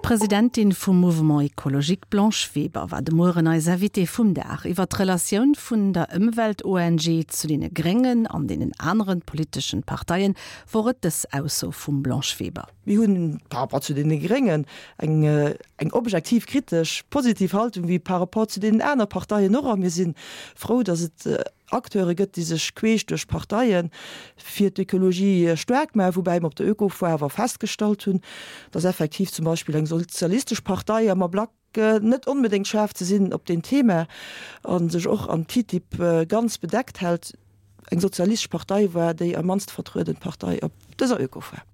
D'Presidentin vum Mouvement Ecologique Blanche Weber war de Mueren eis Invitée vum Dag. Iwwer d'Relatioun vun der Ëmwelt-ONG zu deene Gréngen an deenen aneren politeschen Parteien wor et dës Ausso vum Blanche Weber. Mir hunn par rapport zu deene Gréngen eng eng objektiv kritesch positiv Haltung wéi par rapport zu deenen aner Parteien och a mir si frou, datt et Acteure gëtt, déi sech queesch duerch d'Parteie fir d'Ökologie staark maachen, woubäi mer op der Ökofoire awer festgestallt hunn, datt effektiv zum Beispill eng sozialistesch Partei am Ablack net onbedéngt schaarf ze sinn op deen Thema a sech och am TTIP ganz bedeckt hält. Eng sozialistesch Partei war déi am mannste vertrueden Partei op dëser Ökofoire.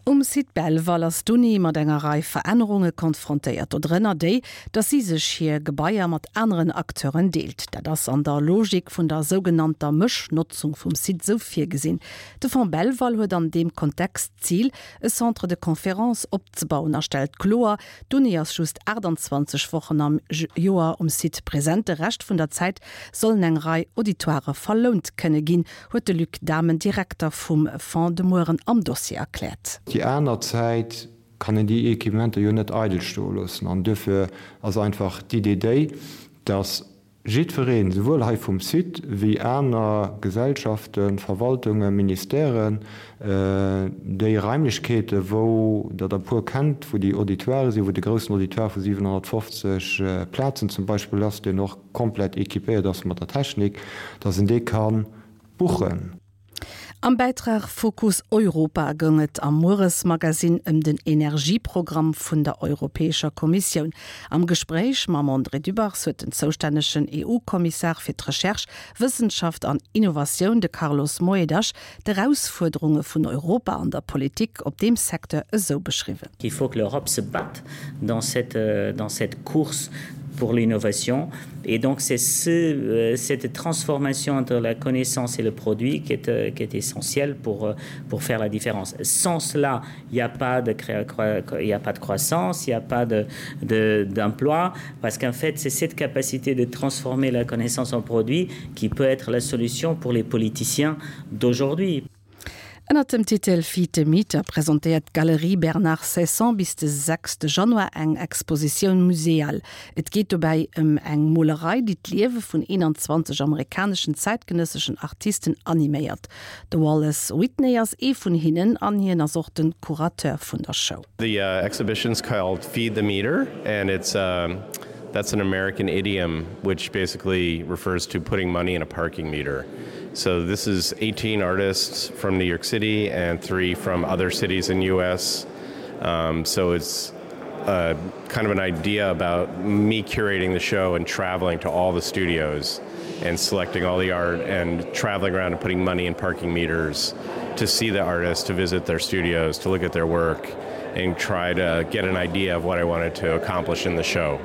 Um Site Belval ass d'Uni mat enger Rei Verännerunge konfrontéiert, dodrënner déi, datt si sech hir Gebaier mat aneren Acteuren deelt. Dat ass an der Logik vun der sougenannter Mëschnotzung vum Site esou virgesinn. De Fonds Belval huet an deem Kontext d'Zil, e Centre de conférences opzebauen a stellt kloer, D'Uni ass just 28 Wochen am Joer um Site present, de Rescht vun der Zäit sollen eng Rei Auditoirë verlount kënne ginn, huet de Luc Dahmen, Direkter vum Fonds, de Mueren am Dossier erkläert. Déi aner Zäit kann een déi Equipementer jo net eidel stoe loossen an duerfir ass einfach d'Idee déi, dass jiddwereen, souwuel hei vum Site wéi aner Gesellschaften, Verwaltungen, Ministèren, déi Raimlechkeete wou Der der e puer kennt, wou déi Auditoiren sinn, wou de groussen Auditoire vu 750 Plazen zum Beispill ass, deen och komplett équipéiert ass mat der Technik, dass en dee ka buchen. Am Bäitrag Fokus Europa goung et am Mueresmagasinn ëm den Energieprogramm vun der Europäescher Kommissioun. Am Gespréich mam André Dübbers huet den zoustännegen EU-Kommissar fir d'Recherche, Wëssenschaft an Innovatioun, de Carlos Moedas, d'Erausfuerderunge vun Europa an der Politik op deem Secteur esou beschriwwen. Il faut que l'Europe se batte dans cette, dans cette course pour l'innovation et donc c'est ce, cette transformation entre la connaissance et le produit qui est, qui est essentielle pour, pour faire la différence. Sans cela, il n'y a pas de il n'y a pas de croissance, il n'y a pas de, de, d'emploi parce qu'en fait c'est cette capacité de transformer la connaissance en produit qui peut être la solution pour les politiciens d'aujourd'hui. Ënnert dem Titel Feed the Meter presentéiert d'Galerie Bernard Ceysson bis de 6 Januar eng Expositioun muséale. Et geet dobäi ëm eng Molerei, déi d'Liewe vun 21 amerikaneschen zäitgenësseschen Artisten animéiert. De Wallace Whitney ass ee vun hinnen an hien ass och de Curateur vun der Show. The exhibition's called Feed the Meter and it's that's an American idiom which basically refers to putting money in a parking meter. So this is 18 artists from New York City and 3 from other cities in US. Um, so it's uh, kind of an idea about me curating the show and traveling to all the studios and selecting all the art and traveling around and putting money in parking meters to see the artists, to visit their studios, to look at their work and try to get an idea of what I wanted to accomplish in the show.